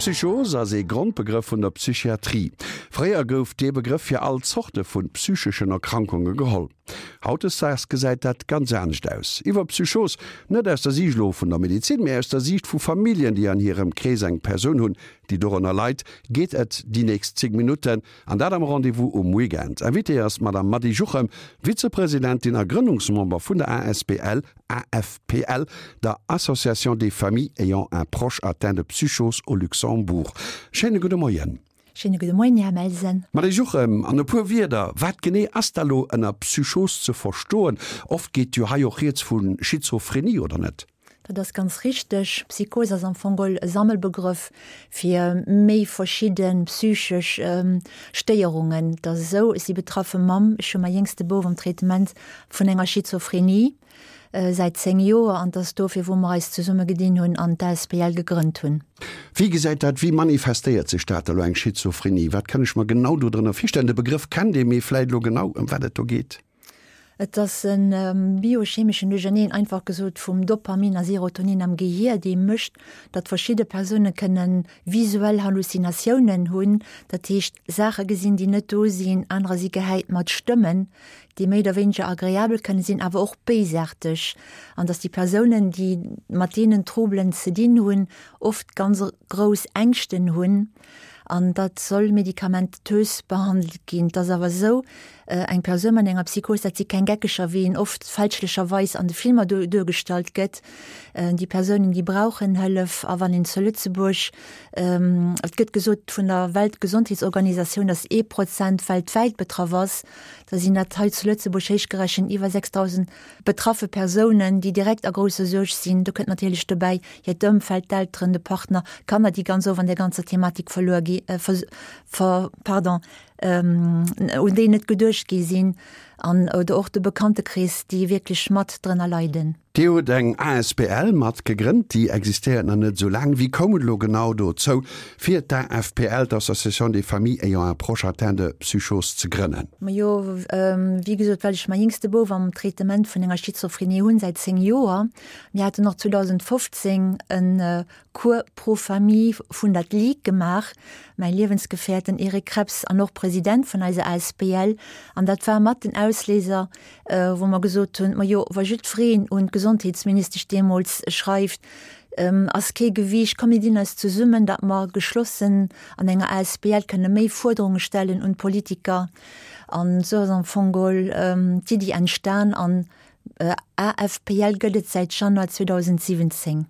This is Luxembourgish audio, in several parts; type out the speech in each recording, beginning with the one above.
Psychos ass ee Grondbegrëff vun der Psychiatrie. Fréier gouf dee Begrëff fir all Zorte vu psycheschen Erkrankunge geholl. Hautdesdaags gesäit dat ganz anescht aus. Iwwer Psychos, net aus der Siicht elo vun der Medezin, mee aus der Siicht vu Familljen, déi an hirem Krees eng Persoun hunn, déi dorënner leit, geet et déi nächst 10 Minutten. An dat am Rendez-vous um Weekend. Invitée ass d'Madame Mady Juchem, Vizepresidentin a Grënnungsmember vun der asbl AFPL, der Association des familles ayant un proche atteint de psychose au Luxembourg. Schéine gudde Moien. Schéine gudde Moien, Här Melsen. Mady Juchem, an e puer Wierder, wat genee ass da lo ënner Psychos ze verstoen? Oft geet jo hei och rieds vu Schizophrenie, oder net? Dat ass ganz richteg. Psychos ass am Fong geholl e Sammelbegrëff fir méi verschidde psychesch Stéierungen. Et ass esou, ech si betraffe Mamm, ech hu mäi jéngste Bouf am Traitement vun enger Schizophrenie säit 10 Joer an et ass dofir, wou mer eis zesumme gedinn hunn an d'ASBL gegrënnt hunn. Wéi gesäit dat, wéi manifestéiert sech dat elo, eng Schizophrenie? Wat kann ech mer genau dodrënner virstellen? De Begrëff kennt ee, mee vläit elo genau ëm wat et do geet? Et ass e biochemeschen Duercherneen, einfach gesot, vum Dopamin a Serotonin am Gehier, dee mécht, datt verschidde Persoune kënne visuell Halluzinatiounen hunn, dat heescht Saache gesinn, déi net do sinn. Anerer si gehäit mat Stëmmen, déi méi oder wéineger agreabel kënne sinn, awer och béisaarteg. An datt déi Persounen, déi mat deenen Troubelen ze dinn hunn, oft ganz grouss Ängschten hunn. An dat soll medikamentös behandelt ginn. Et ass awer esou, eng Persoun mat enger Psychos, dat si keng Geckeger, wéi een oft fälschlecherweis an de Filmer duergestallt gëtt. Déi Persounen, déi brauchen Hëllef. A wann een zu Lëtzebuerg, et gëtt gesot vun der Weltgesondheetsorganisatioun, datt ee Prozent weltwäit betraff ass, da sinn dat hei zu Lëtzebuerg héichgerechent iwwer 6.000 betraffe Persounen, déi direkt a grousser Suerg sinn. Do kënnt natierlech dobäi hiert Ëmfeld, d'Elteren, de Partner, Kanner, déi ganz oft an där ganzer Thematik verluer gi, ver, pardon, un déi net geduecht gi sinn an oder och de Bekanntekrees, déi wierklech mat drënner leiden. Dir hutt eng asbl mat gegrënnt, déi existéiert nach net esou laang. Wéi koum et elo genau dozou, fir d'AFPL, d'Association des familles ayant un proche atteint de psychose, ze grënnen? Majo, wéi gesot, well ech mäi jéngste Bouf am Traitement vun enger Schizophrenie hunn, säit 10 Joer. Mir haten och 2015 e Cours pro famille vun der Ligue gemaach, mäi Liewensgefährt, den Eric Krebs, an och President vun eiser asbl. An dat war mat den Ausléiser, wou mer gesot hunn, majo, wa jiddwereen un d'Gesondheetsministesch deemools schreift, ass kee Gewiicht, komm mir dinn eis zesummen, datt mer geschlossen an enger asbl kënne méi Fuerderunge stellen un d'Politiker. An esou ass am Fong geholl d'Iddi entstan an AFPL gëtt et säit Januar 2017.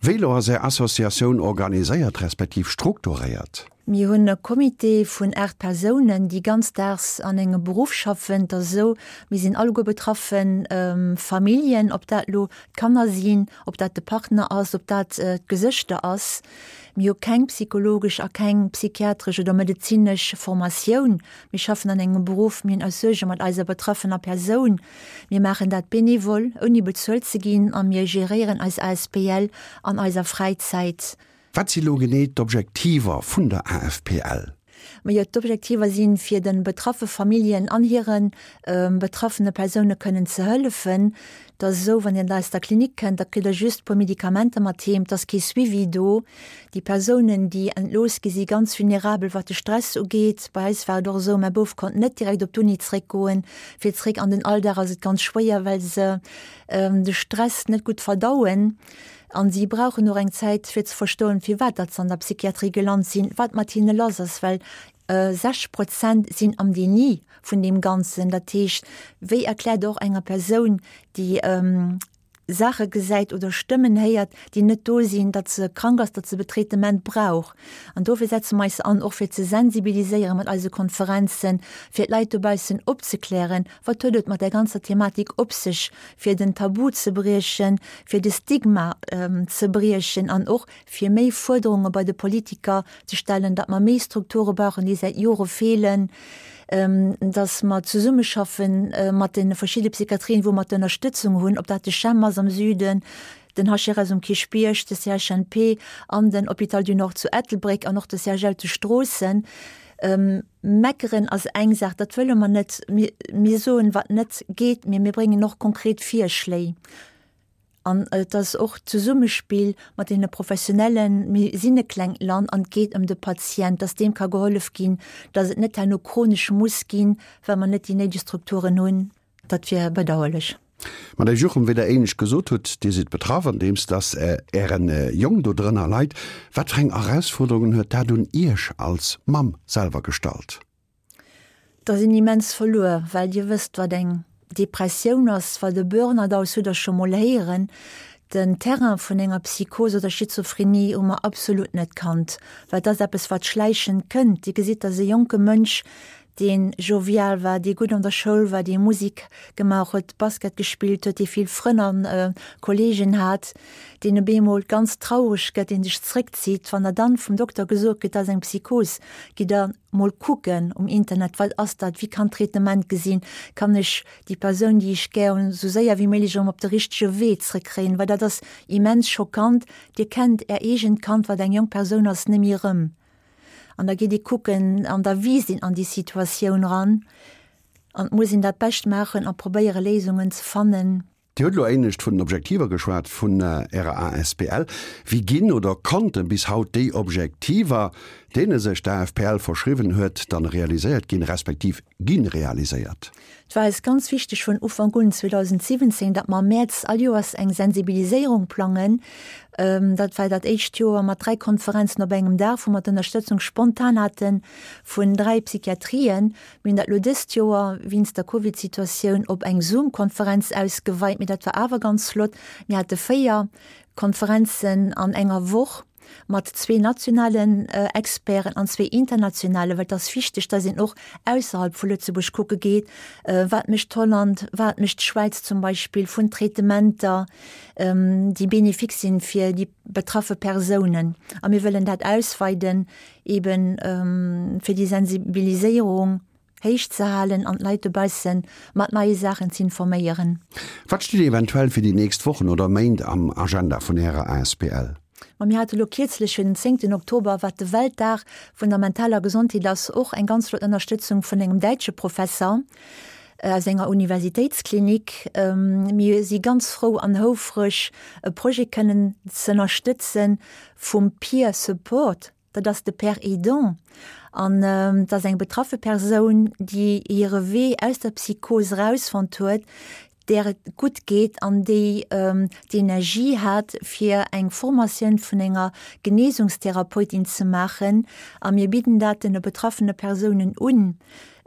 Wéi elo ass Är Associatioun organiséiert respektiv strukturéiert? Mir hunn e Comité vun 8 Persounen, déi ganzdaags an engem Beruff schaffen. Et ass esou, mir sinn alleguer betraffe Familljen, ob dat elo d'Kanner sinn, ob dat de Partner ass, ob dat d'Gesëschter ass. Mir hu keng psychologesch a keng psychiatresch oder medezinesch Formatioun. Mir schaffen an engem Beruff, mir hunn eis Suerge mat eiser betraffener Persoun. Mir maachen dat bénévol, ouni bezuelt ze ginn a mir geréieren eis asbl an eiser Fräizäit. Wat si lo genee d'Objektiver vun der AFPL? Majo, d'Objektiver sinn, fir de betraffe Familljen an hire betraffene Persoune kënnen ze hëllefen. Et ass esou, wann Dir aus der Klinik kënnt, da kritt Der just e puer Medikamenter mat heem. Et ass kee Suivi do. Déi Persounen, déi entlooss gi si ganz vulnerabel, wat de Stress ugeet. Bei eis war et och esou, mäi Bouf konnt net direkt op d'Uni zréckgoen. Fir zréck an den Alldag ass et ganz schwéier, well se de Stress net gutt verdauen. An si brauchen och eng Zäit, fir ze verstoen, firwat datt se an der Psychiatrie gelant sinn, wat mat hinne lass ass, well 60 Prozent sinn am Déni vun deem Ganzen. Dat heescht, wéi erkläert och enger Persoun, déi Saache gesäit oder Stëmmen héiert, déi net do sinn, datt se krank ass, datt se Betraitement brauch. An dofir setze mer eis an, och fir ze sensibiliséieren mat eise Konferenzen, fir d'Leit dobaussen opzeklären, wat huet et mat där ganzer Thematik op sech, fir den Tabu ze briechen, fir de Stigma ze briechen an och fir méi Fuerderunge bei de Politiker ze stellen, datt mer méi Strukture brauchen, déi säit Jore feelen, datt mer zesummeschaffe mat de verschidde Psychiatrien, wou mer d'Ënnerstëtzung hunn, ob dat de CHEM ass am Süden, den HRS um Kierchbierg, de CHNP an den Hôpital du Nord zu Ettelbréck an och de CHL zu Stroossen. Meckeren ass eng Saach, dat wëlle mer net. Mir soen, wat net geet, mee mir bréngen och konkret Virschléi. An et ass och d'Zesummespill mat deene Professionellen. Mir sinn e klengt Land an et geet ëm de Patient, dass deem ka gehollef ginn, dass et net herno chronesch muss ginn, well mer net déi néideg Strukturen hunn. Dat wier bedauerlech. Madame Juchem, wéi Der éinescht gesot hutt, Dir sidd betraff, andeems dass Ären Jong do drënner leit. Wat fir eng Erausfuerderungen huet dat un Iech als Mamm selwer gestallt? Da sinn immens verluer, well Dir wësst, wat eng Depressioun ass, wat e Burnout ass, hutt Der scho mol héieren. Den Terrain vun enger Psychos oder Schizophrenie hu mer absolut net kannt, well et ass eppes, wat schläichend kënnt. Dir gesitt, dass e jonke Mënsch, dee jovial war, dee gutt an der Schoul war, dee Musik gemaach huet, Basket gespillt huet, dee vill Frënn a Kolleegen hat, deen op eemol ganz traureg gëtt, dee sech zréckzitt. Wann der dann vum Dokter gesot kritt, dat ass eng Psychos, gitt Der mol kucken um Internet, wat ass dat, wéi kann d'Traitement gesinn, kann ech déi Persoun, déi ech gär hunn, esou séier wéi méiglech erëm op de richtege Wee zrëckkréien, well dat ass immens schockant. Dir kennt Är eegent Kand, wat eng jonk Persoun ass, net méi erëm. An da geet ee kucken an da wiisst een an déi Situatioun ran an et muss een dat Bescht maachen a probéiere Léisungen ze fannen. Dir hutt elo éinescht vun den Objektiver geschwat vun Ärer asbl. Wéi ginn oder konnte bis haut déi Objektiver, deene sech d'AFPL verschriwwen huet, dann realiséiert ginn, respektiv gi realiséiert? Et war eis ganz wichteg vun Ufank un, 2017, datt mer am Mäerz all Joers eng Sensibiliséierung plangen. Dat war dat éischt Joer mat 3 Konferenzen op engem Dag, wou mer d'Ënnerstëtzung spontan hate vun 3 Psychiatrien. Mir hunn dat elo dëst Joer wéinst der Covid-Situatioun op eng Zoom-Konferenz ausgeweit, mee dat war awer ganz flott. Mir hate 4 Konferenzen an enger Woch. mat zwee nationalen Experten an zwee internationalen, well et ass wichteg, dass een och ausserhalb vu Lëtzebuerg kucke geet, wat mécht Holland, wat mécht d'Schwäiz zum Beispill vun Traitementer, déi bénéfique sinn fir déi betraffe Persounen. A mir wëllen dat ausweiden, eben fir déi Sensibiliséierung. Héich ze halen an d'Leit dobausse mat neie Saachen z'informéieren. Wat steet eventuell fir déi nächst Wochen oder Méint am Agenda vun Ärer asbl? Ma mir hate lo kierzlech fir den zéngten Oktober, wat de Weltdag vun der mentaler Gesondheet ass, och eng ganz flott Ënnerstëtzung vun engem däitsche Professer aus enger Universitéitsklinik. Mir si ganz frou an houfreg, e Projet kënnen z'ënnerstëtzen vum Peer Support. Dat ass de Père aidant an dat ass eng betraffe Persoun, déi hire Wee aus der Psychos erausfonnt huet, där et gutt geet an déi d'Energie hat, fir eng Formatioun vun enger Genesungstherapeutin ze maachen. A mir bidden dat den betraffene Persounen un,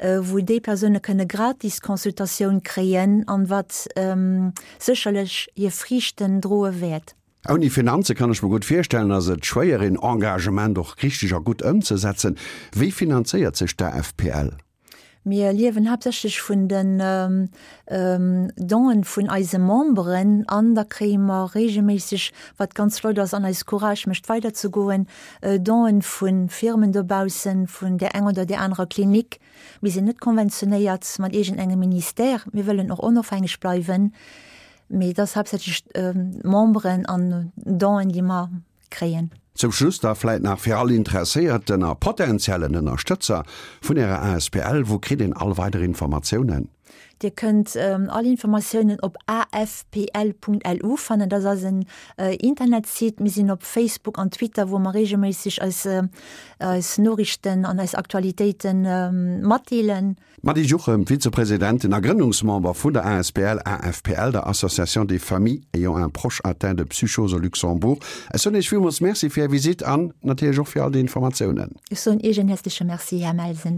wou déi Persoune kënne gratis Consultatioun kréien an wat sécherlech hir Friichten droe wäert. Ouni Finanze kann ech mer gutt virstellen, ass et schwéier een Engagement och richteg a gutt ëmzesetzen. Wéi finanzéiert sech d'AFPL? Mir liewen haaptsächlech vun den Don'en vun eise Memberen an da kréie mer regelméisseg, wat ganz flott ass an eis Courage mécht weider ze goen, Don'en vu Firmen dobaussen, vun där enger oder där anerer Klinik. Mir sinn net konventionéiert mat iergendengem Ministère, mir wëllen och onofhängeg bleiwen. Mee et ass haaptsächlech d'Memberen an Don'en, déi mer kréien. Zum Schluss da vläit nach fir all interesséierten a potentiellen Ënnerstëtzer vun Ärer asbl, Wou kritt een all weider Informatiounen? Dir kënnt all Informatiounen op afpl.lu fannen. Dat ass eisen Internetsite. Mir sinn op Facebook an Twitter, wou mer reegelméisseg eis eis Noriichten an eis Aktualitéite matdeelen. D'Mady Juchem, Vizepresidentin a Grënnungsmember vun der asbl AFPL, der Association des Familles ayant un proche atteint de psychose au Luxembourg. Ech soen Iech villmools Merci fir Är Visitt an natierlech och fir all déi Informatiounen. Ech soen Iech en häerzleche Merci, Här Melsen.